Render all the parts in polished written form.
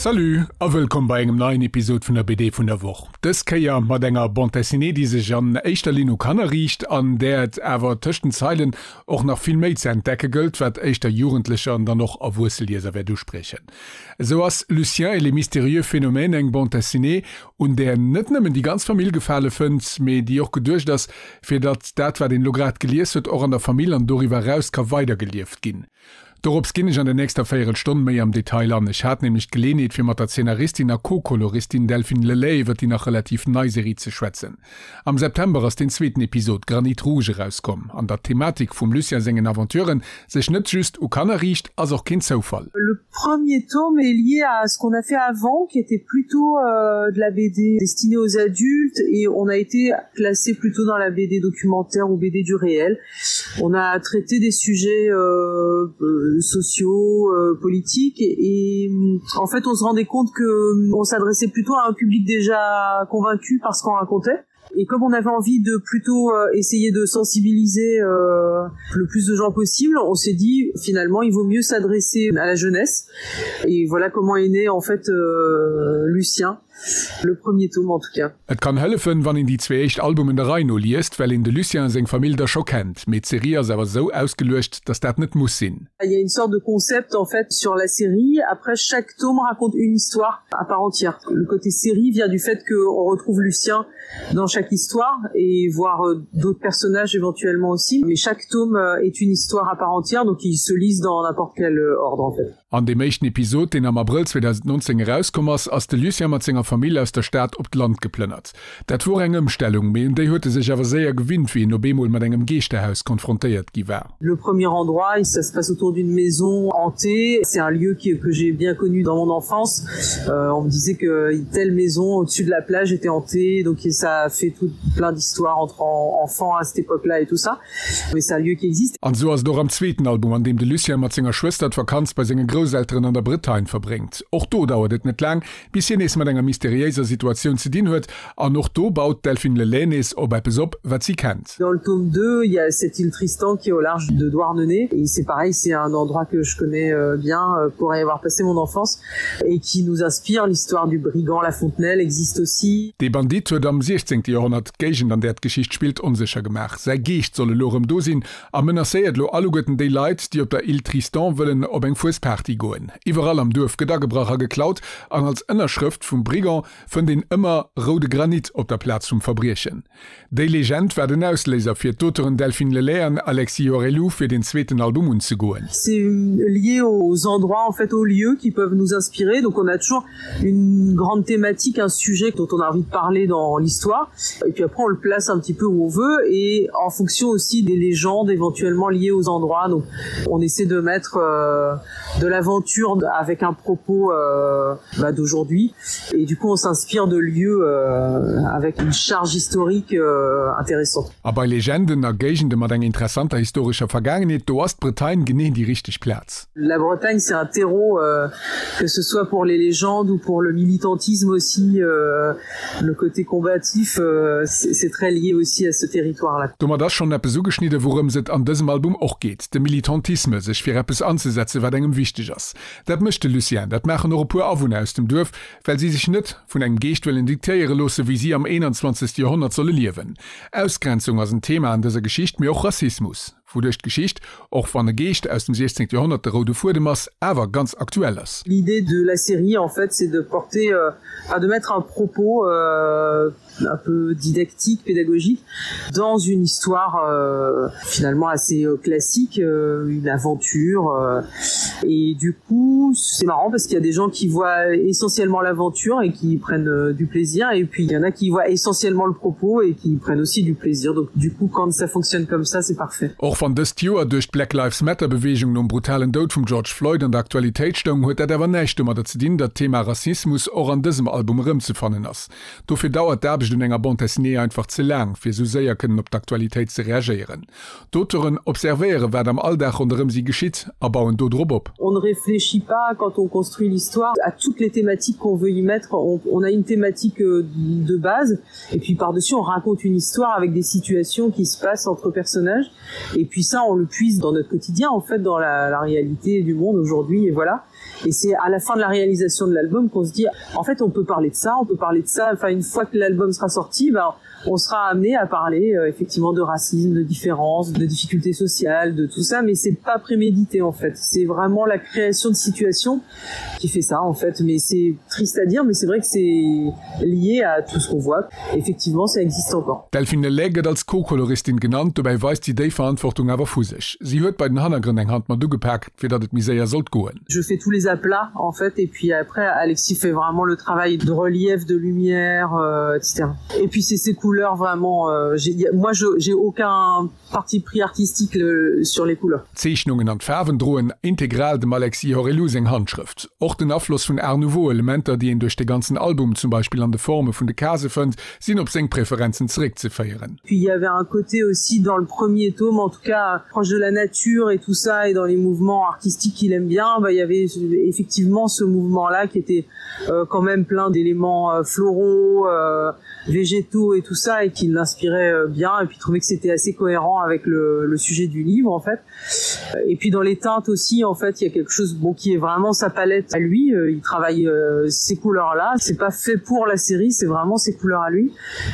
Salut a wëllkomm bei engem neien Episod vun der BD vun der Woch. Dës Kéier mat enger Bande Dessinée, déi sech an éischter Linn u Kanner riicht, an där et awer tëscht den Zeilen och nach vill méi ze entdecke gëllt, wat éischter Jugendlecher an dann och erwuesse Lieser wäert uspriechen. Esou ass Lucien et les mystérieux phénomènes eng Bande Dessinée, un där net nëmmen déi ganz Famill Gefale fënnt, mee déi och geduecht ass, fir datt dat, wat een elo grad gelies huet, och an der Famill an doriwwer eraus ka weidergelieft ginn. Dorops ginn ech an der nächster Véierelstonn méi am Detail an. Ech hat nämlech d'Geleenheet, fir mat der Zeenaristin a Co-Koloristin Delphine Lelay iwwer déi nach relativ nei Serie ze schwätzen. Am September ass den zweeten Episod Granit Rouge erauskomm. An datt d'Thematik vum Lucien sengen Aventuren sech net just u Kanner riicht, ass och keen Zoufall. Le premier tome est lié à ce qu'on a fait avant qui était plutôt de la BD destinée aux adultes et on a été classé plutôt dans la BD documentaire ou BD du réel. On a traité des sujets euh, euh, sociaux, euh, politiques et, et en fait on se rendait compte que on s'adressait plutôt à un public déjà convaincu par ce qu'on racontait. Et comme on avait envie de plutôt euh, essayer de sensibiliser euh, le plus de gens possible, on s'est dit finalement il vaut mieux s'adresser à la jeunesse. Et voilà comment est né en fait euh, Lucien le premier tome en tout cas. Et kann hëllefen, wann een déi zwee éischt Albumen der Rei no liest, well een de Lucien a seng Famill da scho kennt. Mee d'Serie ass awer esou ausgeluecht, dass dat net muss sinn. Il y a une sorte de concept en fait sur la série. Après chaque tome raconte une histoire à part entière. Le côté série vient du fait qu'on retrouve Lucien dans chaque histoire et voir d'autres personnages éventuellement aussi. Mais chaque tome est une histoire à part entière, donc ils se lisent dans n'importe quel ordre en fait. An deem éischten Episod, deen am Abrëll 2019 erauskomm ass, ass de Lucien mat senger Famill aus der Stad op d'Land geplënnert. Dat wor eng Ëmstellung, mee un déi huet e sech awer séier gewinnt, wéi en op eemol mat engem Geeschterhaus konfrontéiert gi war. Le premier endroit, ça se passe autour d'une maison hantée. C'est un lieu qui, que j'ai bien connu dans mon enfance. Euh, on me disait que telle maison au-dessus de la plage était hantée, donc ça a fait tout plein d'histoires entre enfants à cette époque-là et tout ça. Mais c'est un lieu qui existe. An esou ass et och am zweeten Album, an deem de Lucien mat senger Schwëster d'Vakanz bei senge Grousselteren an der Bretagne verbréngt. Och do dauert et net laang, bis hien nees mat enger mysteriéiser Situatioun ze dinn huet, an och do baut d'Delphine Le Lay nees op eppes op, wat si kennt. Dans le tome 2, il y a cette île Tristan qui est au large de Douarnenez et c'est pareil, c'est un endroit que je connais bien pour y avoir passé mon enfance et qui nous inspire. L'histoire du brigand La Fontenelle existe aussi. Dee Bandit huet am 16. Joerhonnert d'Géigend, an där d'Geschicht spillt, onsécher gemaach. Säi Geescht soll elo erëm do sinn a menacéiert elo alleguerten déi Leit, déi op der Île Tristan wëllen op eng Fuesparty goen. Iwwerall am Duerf gëtt agebrach a geklaut an als Ënnerschrëft vum Brigand fënnt een ëmmer roude Granit op der Plaz vum Verbriechen. Déi Legend war den Ausléiser fir d'Auteuren Delphine Lelay an Alexis Horellou fir den zweeten Album unzegoen. C'est lié aux endroits en fait aux lieux qui peuvent nous inspirer donc on a toujours une grande thématique un sujet dont on a envie de parler dans l'histoire et puis après on le place un petit peu où on veut et en fonction aussi des légendes éventuellement liées aux endroits donc on essaie de mettre euh, de l'aventure avec un propos euh, bah, d'aujourd'hui et du coup on s'inspire de lieux euh, avec une charge historique euh, intéressante. A bei Legenden a Géigende mat enger interessanter historescher Vergaangenheet, do ass d'Bretagne genee déi richteg Plaz. La Bretagne c'est un terreau euh, que ce soit pour les légendes ou pour le militantisme aussi euh, le côté combatif euh, c'est très lié aussi à ce territoire là. Domat ass schonn eppes ugeschnidde wourëms et an dësem Album och geet, de Militantisme, sech fir eppes anzesetze wat engem wichteg ass. Dat mécht de Lucien, dat maachen och e puer Awunner aus dem Duerf, well si sech net vun engem Geescht wëllen diktéiere loosse wéi si am 21. Joerhonnert solle liewen. Ausgrenzung ass en Thema an dëser Geschicht, mee och Rassismus, wouduerch d'Geschicht, och wann e Geescht aus dem 16. Joerhonnert de roude Fuedem ass, awer ganz aktuell ass. L'idée de la série en fait c'est de porter, enfin de mettre un propos un peu didactique, pédagogique dans une histoire euh, finalement assez euh, classique, euh, une aventure euh, et du coup c'est marrant parce qu'il y a des gens qui voient essentiellement l'aventure et qui prennent euh, du plaisir et puis il y en a qui voient essentiellement le propos et qui prennent aussi du plaisir donc du coup quand ça fonctionne comme ça c'est parfait. Och wann dëst Joer duerch d'Black Lives Matter Beweegung nom brutalen Doud vum George Floyd an der Aktualitéit stoung, huet dat awer näischt domadder ze dinn, datt d'Thema Rassismus och an dësem Album erëmzefannen ass. Dofir dauert d'Aarbecht un enger Bande dessinée einfach ze laang, fir esou séier kënnen op d'Aktualitéit ze reagéieren. D'Auteuren observéiere wat am Alldag ronderëm si geschitt a bauen do drop op. On ne réfléchit pas. pas quand on construit l'histoire à toutes les thématiques qu'on veut y mettre on, on a une thématique euh, de base et puis par dessus on raconte une histoire avec des situations qui se passent entre personnages et puis ça on le puise dans notre quotidien en fait dans la, la réalité du monde aujourd'hui et voilà et c'est à la fin de la réalisation de l'album qu'on se dit en fait on peut parler de ça on peut parler de ça enfin une fois que l'album sera sorti ben on sera amené à parler euh, effectivement de racisme de différence de difficultés sociales de tout ça mais c'est pas prémédité en fait c'est vraiment la création de situations qui fait ça en fait mais c'est triste à dire mais c'est vrai que c'est lié à tout ce qu'on voit effectivement ça existe encore Delphine Lelay gëtt als Co-Koloristin genannt, dobäi weist si déi Verantwortung awer vu sech. Si huet bei den Hannergrënn eng Hand mat ugepak, fir datt et méi séier sollt goen. Je fais tous les aplats en fait et puis après Alexis fait vraiment le travail de relief, de lumière, euh, etc. Et puis c'est ses couleurs vraiment euh, moi j'ai aucun parti pris artistique le, sur les couleurs. D'Zeechnungen an d'Faarwen droen integral dem Alexis Horellou seng Handschrëft. Och den Afloss vun Art Nouveau Elementer, déi een duerch de ganzen Album, zum Beispill an de Forme vun de Case fënnt, sinn op seng Preferenzen zeréckzeféieren. Puis il y avait un côté aussi dans le premier tome, en tout cas proche de la nature et tout ça et dans les mouvements artistiques qu'il aime bien, bah, il y avait effectivement ce mouvement là qui était euh, quand même plein d'éléments euh, floraux, euh, végétaux et tout ça et qui l'inspirait euh, bien et puis trouvait que c'était assez cohérent avec le, le sujet du livre en fait. Et puis dans les teintes aussi en fait il y a quelque chose bon qui est vraiment sa palette à lui, euh, il travaille euh, ces couleurs là, c'est pas fait pour la série, c'est vraiment ses couleurs à lui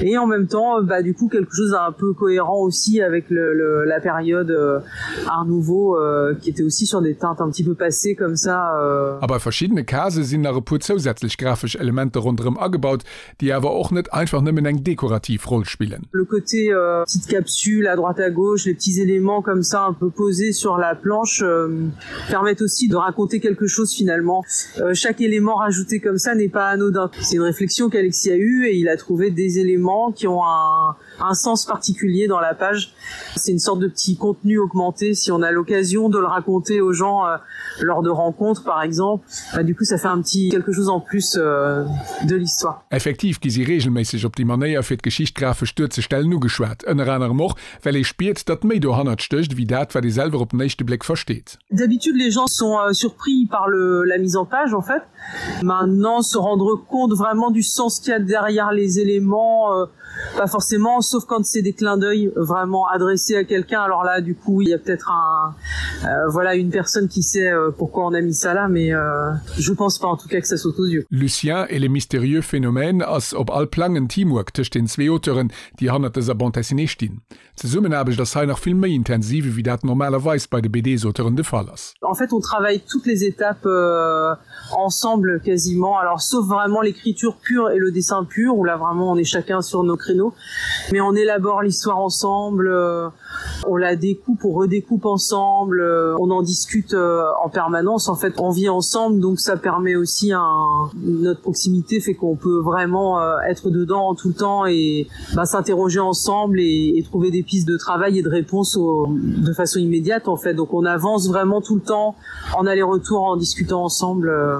et en même temps bah du coup quelque chose un peu cohérent aussi avec le, le, la période euh, art nouveau euh, qui était aussi sur des teintes un petit peu passées comme ça euh. A bei verschiddene Case sinn nach e puer zousätzlech grafesch Elementer ronderëm agebaut, déi awer och net einfach nëmmen eng dekorativ Roll spillen. Le côté euh, petite capsule à droite à gauche, les petits éléments comme ça un peu posés sur la planche euh, permettent aussi de raconter quelque chose finalement. Euh, chaque élément rajouté comme ça n'est pas anodin. C'est une réflexion qu'Alexis a eue et il a trouvé des éléments qui ont un, un sens particulier dans la page. C'est une sorte de petit contenu augmenté si on a l'occasion de le raconter aux gens euh, lors de rencontres par exemple. Bah, du coup ça fait un petit quelque chose en plus euh, de l'histoire. Effektiv gi si reegelméisseg op déi Manéier fir d'Geschicht grafesch duerzestellen ugeschwat, ënner anerem och, well ee spiert, datt méi dohannert stécht ewéi dat, wat ee selwer op den éischte Bléck versteet. D'habitude les gens sont euh, surpris par le, la mise en page en fait. Maintenant se rendre compte vraiment du sens qu'il y a derrière les éléments, euh, pas forcément sauf quand c'est des clins d'oeil vraiment adressés à quelqu'un alors là du coup il y a peut-être un euh, voilà une personne qui sait euh, pourquoi on a mis ça là mais euh, je pense pas en tout cas que ça saute aux yeux. Lucien et les mystérieux phénomènes ass op all Plang en Teamwork tëscht den zwee Auteuren, déi hannert dëser Bande dessinée stinn. D'Zesummenaarbecht ass hei nach vill méi intensiv ewéi dat normalerweis bei de BDs-Auteuren de Fall ass. En fait on travaille toutes les étapes euh, ensemble quasiment alors sauf vraiment l'écriture pure et le dessin pur où là vraiment on est chacun sur nos créneaux mais on élabore l'histoire ensemble euh, on la découpe on redécoupe ensemble euh, on en discute euh, en permanence en fait on vit ensemble donc ça permet aussi un notre proximité fait qu'on peut vraiment euh, être dedans tout le temps et bah, s'interroger ensemble et, et trouver des pistes de travail et de réponses au, de façon immédiate en fait donc on avance vraiment tout le temps en aller-retour en discutant ensemble euh,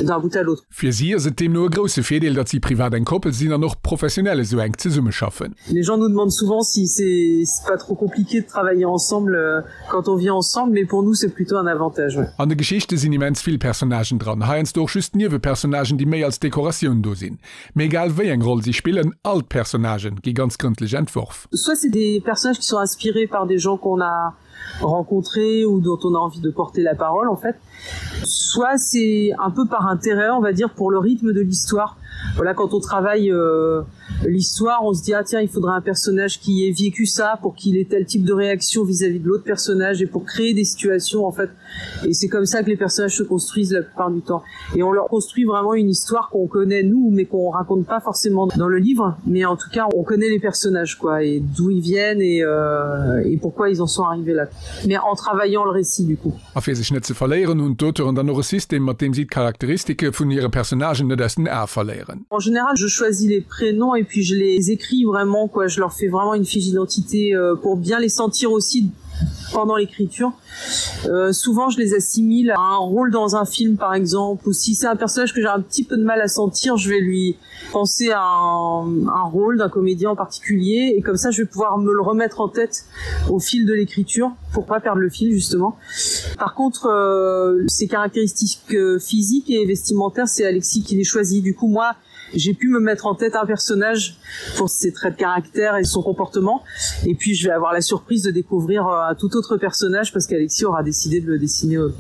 d'un bout à l'autre. Fir si ass et deemno e grousse Virdeel, datt si privat eng Koppel sinn an och professionell esou enk zesummeschaffen. Les gens nous demandent souvent si c'est pas trop compliqué de travailler ensemble euh, quand on vit ensemble, mais pour nous c'est plutôt un avantage. Ouais. An de Geschichte sinn immens vill Personnagen dran, heiansdo och just Niewepersonnagen, déi méi als Dekoratioun do sinn. Mee egal wéi eng Roll si spillen, all d'Personnagen gi ganz grëndlech entworf. Soit c'est des personnages qui sont inspirés par des gens qu'on a rencontrés ou dont on a envie de porter la parole en fait. Soit c'est un peu par intérêt, on va dire, pour le rythme de l'histoire. Voilà, quand on travaille euh, l'histoire, on se dit ah tiens, il faudrait un personnage qui ait vécu ça pour qu'il ait tel type de réaction vis-à-vis -vis de l'autre personnage et pour créer des situations en fait. Et c'est comme ça que les personnages se construisent la plupart du temps. Et on leur construit vraiment une histoire qu'on connaît nous, mais qu'on raconte pas forcément dans le livre. Mais en tout cas, on connaît les personnages quoi et d'où ils viennent et, euh, et pourquoi ils en sont arrivés là. Mais en travaillant le récit du coup. A fir sech net ze verléieren, hunn d'Auteuren dann och e System, mat deem si d'Charakteristike vun hire Personnagen net aus den Ae verléieren. En général, je choisis les prénoms et puis je les écris vraiment quoi. Je leur fais vraiment une fiche d'identité euh, pour bien les sentir aussi. pendant l'écriture. Euh, souvent je les assimile à un rôle dans un film par exemple ou si c'est un personnage que j'ai un petit peu de mal à sentir, je vais lui penser à un, un rôle d'un comédien en particulier et comme ça je vais pouvoir me le remettre en tête au fil de l'écriture pour pas perdre le fil justement. Par contre euh, ses caractéristiques euh, physiques et vestimentaires c'est Alexis qui les choisit du coup moi j'ai pu me mettre en tête un personnage pour ses traits de caractère et son comportement et puis je vais avoir la surprise de découvrir euh, un tout autre personnage parce qu'Alexis aura décidé de le dessiner euh,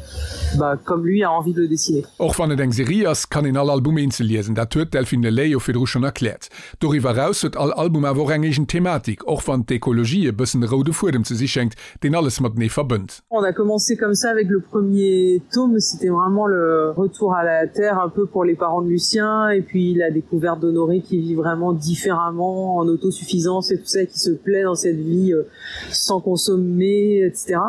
bah, comme lui a envie de le dessiner. Och wann et eng Serie ass, kann een all Album eenzel liesen, dat huet d'Delphine Lelay jo virdru schonn erkläert. Doriwwer eraus huet all Album awer och eng eegen Thematik, och wann d'Ekologie e bëssen e roude Fuedem ze si schéngt, deen alles matenee verbënnt. On a commencé comme ça avec le premier tome, c'était vraiment le retour à la terre un peu pour les parents de Lucien et puis la découverte d'Honoré qui vit vraiment différemment en autosuffisance et tout ça qui se plaît dans cette vie euh, sans consommer etc.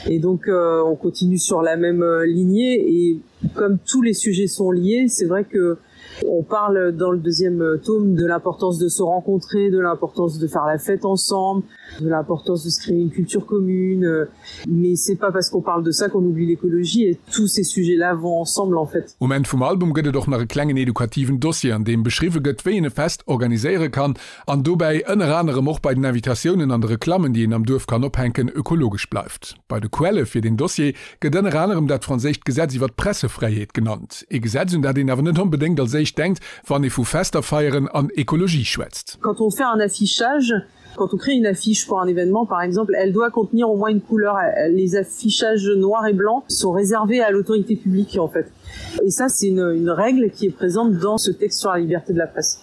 Et donc euh, on continue sur la même euh, lignée et comme tous les sujets sont liés, c'est vrai que On parle dans le deuxième tome de l'importance de se rencontrer, de l'importance de faire la fête ensemble, de l'importance de se créer une culture commune. Mais c'est pas parce qu'on parle de ça qu'on oublie l'écologie et tous ces sujets-là vont ensemble en fait. Um Enn vum Album gëtt et och nach e klengen edukativen Dossier, an deem beschriwwe gëtt, wéi een e Fest organiséiere kann an dobäi ënner anerem och bei den Invitatiounen an de Reklammen, déi een am Duerf kann ophänken, ökologesch bleift. Bei de Quelle fir deen Dossier gëtt ënner anerem dat franséischt Gesetz iwwer d'Pressefräiheet genannt. Ee Gesetz, un dat een awer net onbedéngt als éischt denkt, wann ee vu Fester feieren an Ekologie schwätzt. Quand on fait un affichage, quand on crée une affiche pour un événement par exemple, elle doit contenir au moins une couleur. Les affichages noirs et blancs sont réservés à l'autorité publique en fait. Et ça c'est une, une règle qui est présente dans ce texte sur la liberté de la presse.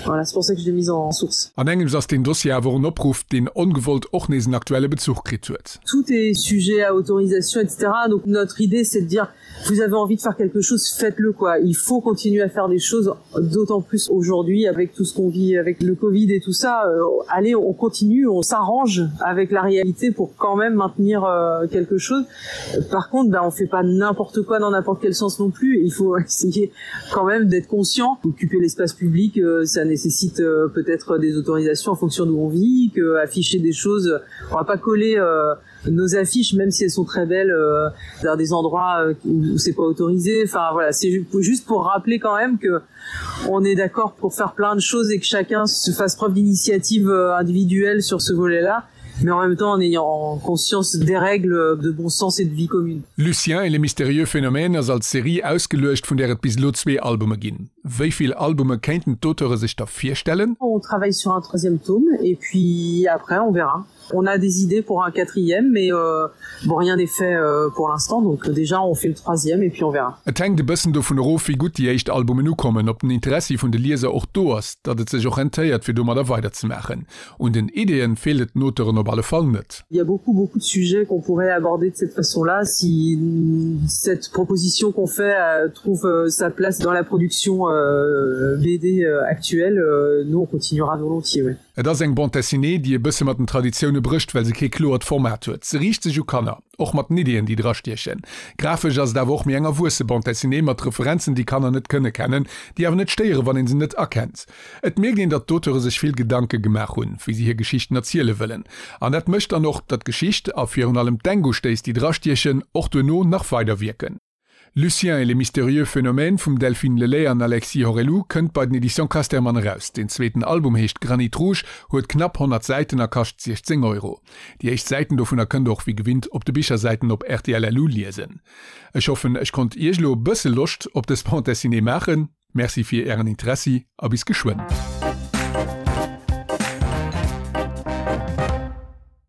Voilà, c'est pour ça que je l'ai mise en source. An engems ass deen Dossier awer och en Opruff, deen ongewollt och nees en aktuelle Bezuch kritt huet. Tout est sujet à autorisation, etc. Donc notre idée c'est de dire vous avez envie de faire quelque chose, faites-le quoi. Il faut continuer à faire des choses, d'autant plus aujourd'hui avec tout ce qu'on vit avec le Covid et tout ça. Euh, allez, on continue, on s'arrange avec la réalité pour quand même maintenir euh, quelque chose. Par contre, ben, on fait pas n'importe quoi dans n'importe quel sens non plus. Il faut essayer quand même d'être conscient. Occuper l'espace public, euh, ça nécessite euh, peut-être des autorisations en fonction d'où on vit, que afficher des choses, on va pas coller euh, nos affiches même si elles sont très belles euh, dans des endroits euh, où c'est pas autorisé enfin voilà c'est juste pour rappeler quand même que on est d'accord pour faire plein de choses et que chacun se fasse preuve d'initiative euh, individuelle sur ce volet là mais en même temps en ayant conscience des règles de bon sens et de vie commune. Lucien et les mystérieux phénomènes ass als Serie ausgeluecht, vun där et bis elo zwee Albume ginn. Wéi vill Albume kéinten d'Auteure sech da virstellen? On travaille sur un troisième tome et puis après on verra. On a des idées pour un quatrième mais euh, bon rien n'est fait euh, pour l'instant donc déjà on fait le troisième et puis on verra. Et hänkt e bëssen dovun erof, wéi gutt déi éischt Albumen ukommen, ob den Interessi vun de Lieser och do ass, datt et sech och rentéiert fir domadder weiderzemaachen. Un den Ideeën feelt et den Auteuren op alle Fall net. Il y a beaucoup beaucoup de sujets qu'on pourrait aborder de cette façon-là si cette proposition qu'on fait euh, trouve euh, sa place dans la production euh, BD euh, actuelle, euh, nous on continuera volontiers. Ouais. Et ass eng Bande dessinée, déi e bësse mat den Traditioune brécht, well se kee kloert Format huet. Se riicht sech u Kanner, och mat den Ideeën, déi drastiechen. Grafesch ass et awer och méi eng erwuesse Bande dessinée mat Referenzen, déi Kanner net kënne kennen, déi awer net stéieren, wann een se net erkennt. Et mierkt een, datt d'Auteure sech vill Gedanke gemaach hunn, wéi se hir Geschichten erziele wëllen. An dat mécht dann och, datt d'Geschicht, a virun allem d'Denkustéiss, déi drastiechen, och duerno nach weider wierken. Lucien et les mystérieux phénomènes vum Delphine Lelay an Alexis Horellou kënnt bei den Editions Casterman eraus. Den zweeten Album heescht Granit Rouge, huet knapp 100 Säiten a kascht 16 Euro. Déi éischt Säiten dovunner kënnt der och wéi gewinnt op de Bichersäiten op rtl.lu liesen. Ech hoffen, ech konnt Iech elo e bësse Loscht op dës Bande Dessinée maachen. Merci fir Ären Interessi a bis geschwënn.